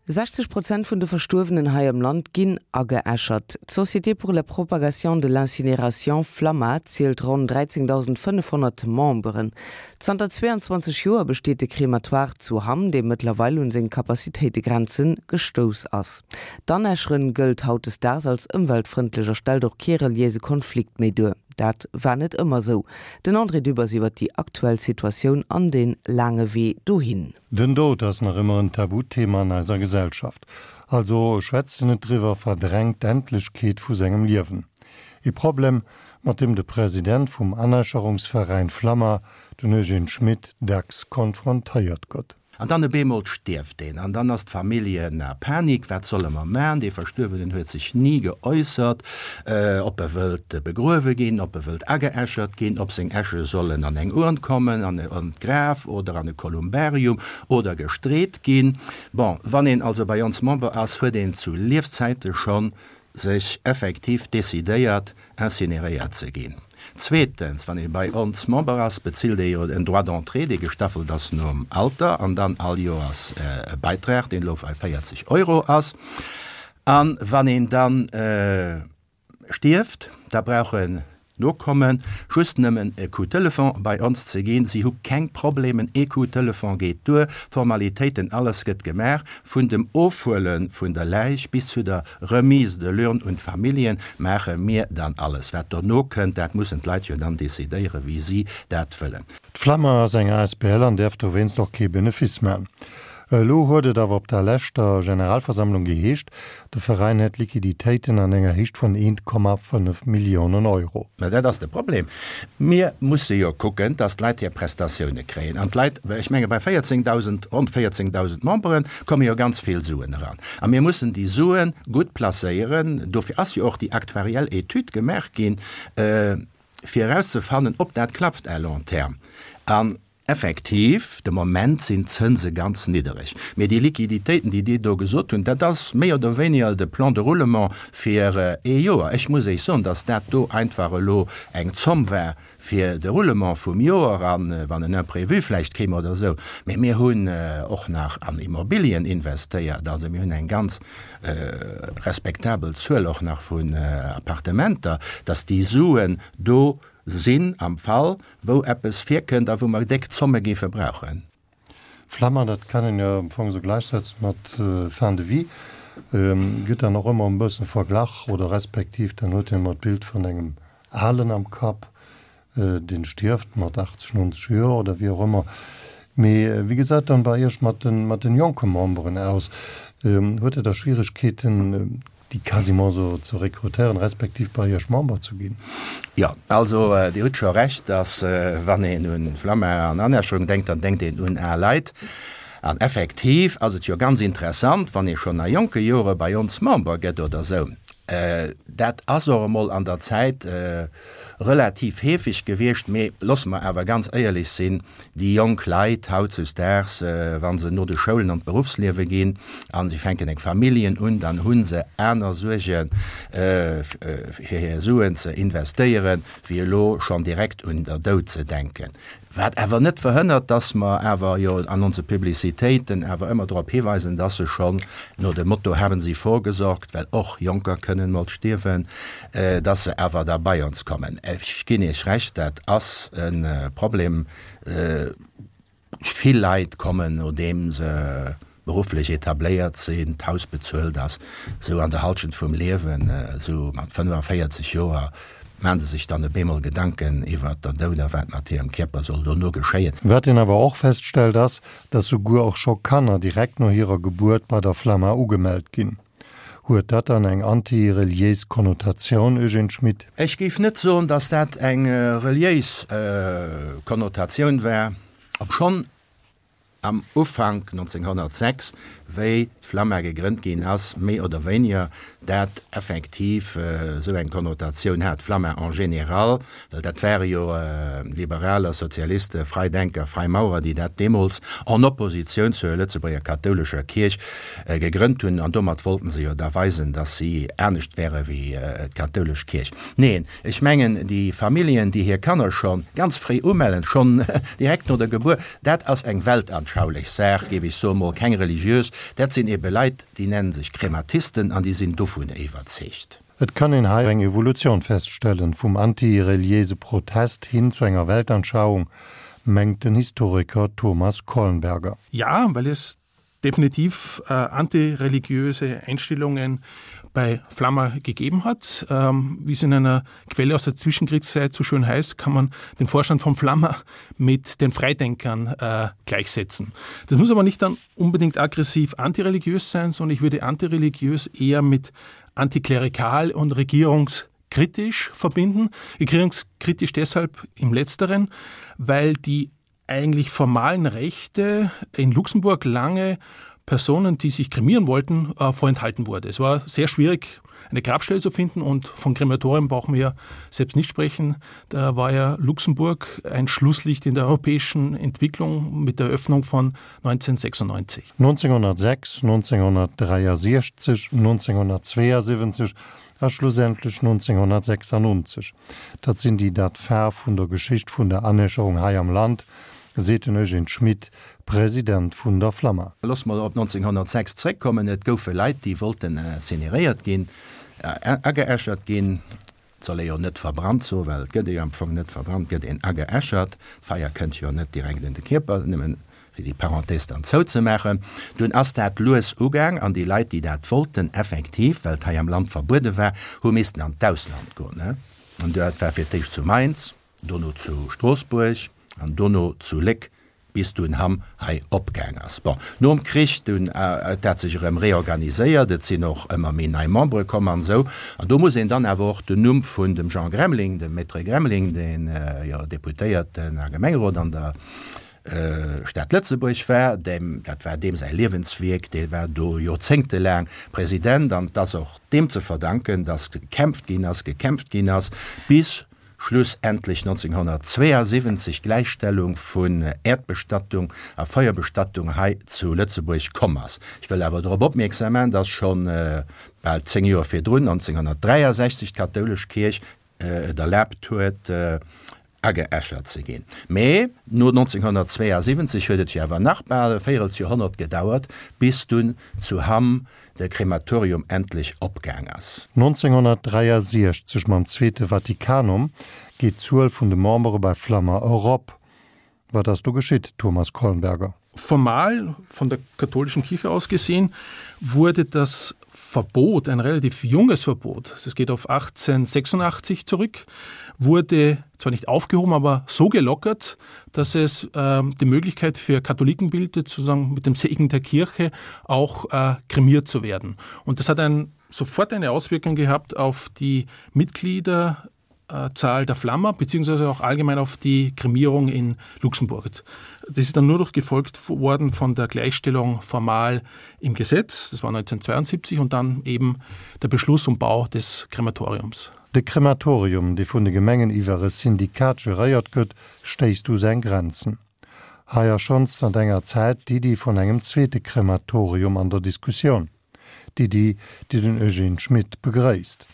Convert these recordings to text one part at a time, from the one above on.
60 Prozent vun de Verstuerwenen hei am Land ginn ageäschert. D'Société pour la propagation de l'incinération Flamma zielt ronn 13.500 Memberen. Zanter 22 Joer besteet de Krematoire zu Hamm, dee mëttlerweil un seng Capacitéitegrenze gestouss ass. D'Anäscheren gëllt hautdesdaags als ëmweltfrëndlech a stellt och kee reliéise Konflikt méi duer. Dat war net ëmmer esou. Den André Dübbers iwwer déi aktuell Situatioun an dee laange Wee dohin. Den Doud ass nach ëmmer en Tabuthema an eiser Gesellschaft. Also schwätzt en net driwwer, verdrängt d'Endlechkeet vu sengem Liewen. E Problem, mat deem de President vum Anäscherungsveräin Flamma, den Eugène Schmit, dacks konfrontéiert gëtt. An dann op eemol stierft een an dann ass d'Famillje a Panik, wat solle mer man? Dee Verstuerwenen huet sech ni geäussert, ob e wëllt begruewe ginn, ob e wëllt ageäschert ginn, ob seng Äsche sollen an eng Urn kommen, an d'Graf oder an e Kolumbarium oder gestreet ginn. Bon, wann een also bei ons Member ass, huet een zu Liefzäite schonn sech effektiv decidéiert, incineréiert ze ginn. Zweetens, wann ee bei ons Member ass, bezilt ee jo en Droit d'entrée, dee gestaffelt ass nom Alter an dann all Joers e Beitrag, deen elo bei 40 Euro ass. A wann een dann stierft, da brauchen d'Nokomme just nëmmen e Coup Telefon bei ons ze ginn. Si hu keng Problemen, ee Coup Telefon geet duer, Formalitéiten, alles gëtt gemaach, vun dem Ofhuele vun der Läich bis zu der Remise de l'urne un d'Familljen maache mir dann alles. Wat dono kënnt, dat mussen d'Leit jo dann decidéieren, wéi si dat wëllen. D'Flamma ass eng asbl an däerf dowéinst och kee Benefice man. Elo huet et awer op der leschter Generalversammlung geheescht, de Veräin hätt Liquiditéiten an enger Héicht vun 1,5 Milliounen Euro. Mä dat ass de Problem. Mir musse jo kucken, dass d'Leit hir Prestatioune kréien. An d'Leit, ech menge bei 14.000, ronn 14.000 Membere komme jo ganz vill Suen eran. A mir mussen déi Sue gutt placéieren. Dofir ass jo och déi aktuariell Etüd gemaach ginn, fir erauszefannen, ob dat klappt à long terme. An effektiv, de Moment sinn d'Zënse ganz niddereg. Mee déi Liquiditéiten, déi Dir do gesot hunn, dat ass méi oder wéiniger de Plan de roulement fir ee Joer. Ech muss Iech soen, dass dat do einfach elo eng Zomm war fir de Roulement vum Joer an wann en Imprévu vläicht kéim oder esou. Mee mir hunn och nach an Immobilien investéiert. Also mir hunn eng ganz respektabel Zuel och nach vun Appartementer, dass déi Suen do sinn am Fall wou eppes virkënnt a wou mer déck Zomme géife brauchen. Flammer, dat kann een jo am Fong esou gläichsetzen mat Fin de vie, gëtt dann och ëmmer e bëssen verglach oder respektiv dann huet een ëmmer d'Bild vun engem Alen am Kapp, deen stierft mat 80, 90 Joer oder wéi och ëmmer. Mee wéi gesäit dann bei Iech mat den, mat den jonke Memberen aus? Huet Der da Schwieregkeeten, déi quasiment esou ze rekrutéieren, respektiv bei Iech Member ze ginn? Jo, also Dir hutt scho Recht, dass wann een un Flamma an Anerschung denkt, dann denkt een un al Leit. An effektiv ass et jo ganz interessant, wann ee schonn a jonke Jore bei ons Member gëtt oder esou. Dat ass och emol an der Zäit relativ heefeg gewiescht, mee loosse mer awer ganz éierlech sinn, Déi jonk Leit hautzuesdaags, wa se no de Schoulen an d'Beruffsliewe ginn a si fänken eng Familljen un, dann hu se aner Suerge fir hir Suen ze investéieren, wéi elo schonn direkt un der Doud ze denken. Wat awer net verhënnert, dass mer awer jo an onse Publicitéiten awer ëmmer drop hiweisen, dass se schonn no dem Motto Haben Sie vorgesorgt, well och Jonker kënnen mol stierwen, dass se awer da bei ons kommen. Ech ginn Iech Recht, dat ass e Problem. Vill Leit kommen, nodeem se berufflech etabléiert sinn, d'Haus bezuelt ass, esou an der Halschent vum Liewen, esou mat 45 Joer, maache se sech dann op eemol Gedanken iwwert der Doud a wat mat hirem Kierper soll dono geschéien. Wat een awer och feststellt ass, dass souguer och scho Kanner direkt no hirer Gebuert bei der Flamma ugemellt ginn. Huet dat dann eng anti-reliéis Konnotatioun, Eugène Schmit? Ech géif net soen, dass dat eng reliéis Konnotatioun war, obschonn am Ufank 1906, wéi d'Flamma gegrënnt ginn ass, méi oder wéiniger dat effektiv esou eng Konnotatioun hat, d'Flamma en général, well dat ware jo Liberaler, Sozialiste, Freidenker, Freimaurer, déi dat deemools en Oppositioun zur Lëtzebuerger kathoulescher Kierch gegrënnt hunn, an domat wollten se jo da weisen, dass si anescht wäre wéi d'kathoulesch Kierch. Neen, ech mengen, déi Familljen, déi hir Kanner scho ganz fréi umellen, schonn direkt no der Gebuert, dat ass eng Weltanschauung. weltanschaulich Saach, géif ech soen, mol keng religiös. Dat sinn ebe Leit, déi nennen sech Krematisten an déi sinn dovun iwwerzeegt. Et kann een hei eng Evolutioun feststellen, vum antireliéise Protest hin zu enger Weltanschauung, mengt den Historiker Thomas Kollenberger. Ja, well es definitiv äh, antireligiöse Einstellungen bei Flammer gegeben hat. Ähm, wie es in einer Quelle aus der Zwischenkriegszeit so schön heißt, kann man den Vorstand von Flammer mit den Freidenkern äh, gleichsetzen. Das muss aber nicht dann unbedingt aggressiv antireligiös sein, sondern ich würde antireligiös eher mit antiklerikal und regierungskritisch verbinden. Regierungskritisch deshalb im letzteren, weil die eigentlich formalen Rechte in Luxemburg lange Personen, die sich kremieren wollten, äh, vorenthalten wurde. Es war sehr schwierig, eine Grabstelle zu finden und von Krematorien brauchen wir selbst nicht sprechen. Da war ja Luxemburg ein Schlusslicht in der europäischen Entwicklung mit der Eröffnung von 1996. 1906, 1963, 1972 a schlussendlech 1996, dat sinn déi dat Faarf vun der Geschicht vun der Anäscherung hei am Land, seet den Eugène Schmit, President vun der Flamma. Loosse mer op 1906 zréckkommen. Et goufe Leit, déi wollten incineréiert ginn, ageäschert ginn. Et soll ee jo net verbrannt soen, well et gëtt ee jo am Fong net verbrannt, et gëtt een ageäschert. D'Feier kënnt jo net direkt un de Kierper, nëmmen fir déi Parenthèse dann zouzemaachen. Dunn ass dat lues ugaang an déi Leit, déi dat wollten, effektiv, well et hei am Land verbuede war, hu missten an d'Ausland goen. An dat war fir d'éischt zu Mainz, dono zu Stroossbuerg an dono zu Léck, bis dunn Hamm hei opgaang ass. Bon, nom Krich dunn huet dat sech erëm reorganiséiert, et sinn och ëmmer méi nei Membere komm an esou. An do muss een dann awer och den Numm vun dem Jean Gremling, dem Maître Gremling, deen jo Deputéierten a Gemengerot an der Stad Lëtzebuerg war, deem, dat war deem säi Liewenswierk, dee war do joerzéngtelaang President an et ass och deem ze verdanken, datt gekämpft ginn ass, gekämpft ginn ass, bis schlussendlech 1972 d'Gläichstellung vun Äerdbestattung a Feuerbestattung hei zu Lëtzebuerg komm ass. Ech wëll awer drop opmierksam maachen, dass scho bal 10 Joer virdrun, 1963, d'kathoulesch Kierch et erlaabt huet, ageäschert ze ginn. Mee no 1972 huet et jo awer nach bal e Véirelsjoerhonnert gedauert, bis dunn zu Hamm de Krematorium endlech opgaang ass. 1963 mam Zweete Vatikanum geet d'Zuel vun de Membere bei Flamma erop. Wat ass do geschitt, Thomas Kollenberger? Formal, von der katholischen Kirche aus gesehen, wurde das Verbot, ein relativ junges Verbot, es geht auf 1886 zurück, wurde zwar nicht aufgehoben, aber so gelockert, dass es äh, die Möglichkeit für Katholiken bildet, sozusagen mit dem Segen der Kirche auch äh, kremiert zu werden. Und das hat ein, sofort eine Auswirkung gehabt auf die Mitglieder Zahl der Flammer beziehungsweise auch allgemein auf die Kremierung in Luxemburg. Das ist dann nur noch gefolgt worden von der Gleichstellung formal im Gesetz, das war 1972 und dann eben der Beschluss um Bau des Krematoriums. De Krematorium, dee vun de Gemengen iwwer e Syndikat geréiert gëtt, stéisst u seng Grenzen. Hei ass schonns zanter enger Zäit d'Iddi vun engem zweete Krematorium an der Diskussioun. D'Iddi, déi den Eugène Schmit begréisst.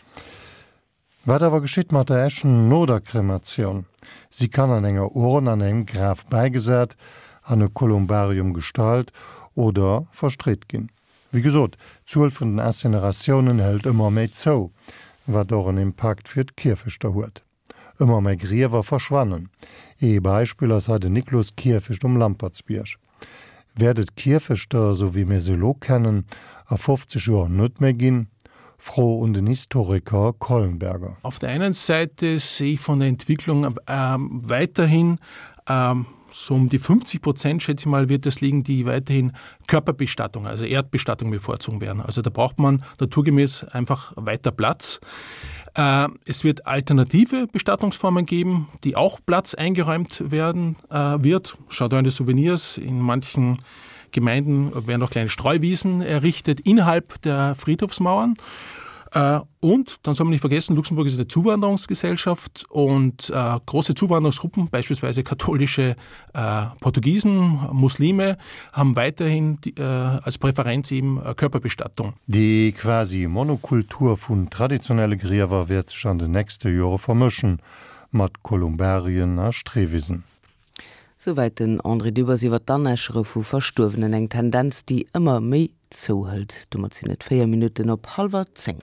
Wat awer geschitt mat der Äschen no der Krematioun? Si kann an enger Urn an engem Graf bäigesat, an e Kolumbarium gestallt oder verstreet ginn. Wéi gesot, d'Zuel vun den Incineratiounen hëlt ëmmer méi zou, wat och en Impakt fir d'Kierfechter huet. Ëmmer méi Griewer verschwannen. Ee Beispill ass hei den Nikloskierfecht um Lampertsbierg. Wäert et Kierfechter, esou wéi mir se elo kennen, a 50 Joer net méi ginn? Fro un den Historiker Collenberger. Auf der einen Seite sehe ich von der Entwicklung weiterhin so um die 50 Prozent, schätze ich mal, wird es liegen, die weiterhin Körperbestattung, also Erdbestattung bevorzugen werden. Also da braucht man naturgemäß einfach weiter Platz. Äh, es wird alternative Bestattungsformen geben, die auch Platz eingeräumt werden äh, wird. Schaut an die Souvenirs. In manchen Gemeinden werden auch kleine Streuwiesen errichtet innerhalb der Friedhofsmauern. Äh, und dann soll man nicht vergessen, Luxemburg ist eine Zuwanderungsgesellschaft und äh, große Zuwanderungsgruppen, beispielsweise katholische äh, Portugiesen, Muslime, haben weiterhin die, äh, als Präferenz eben äh, Körperbestattung. Déi quasi Monokultur vun traditionelle Griewer wäert sech an den nächste Jore vermëschen, mat Kolumbarien a Streewisen. Souwäit den André Dübbers iwwer d'Anäschere vu Verstuerwenen, eng Tendenz, déi ëmmer méi zouhëlt. Domat sinn et 4 Minutten op hallwer 10.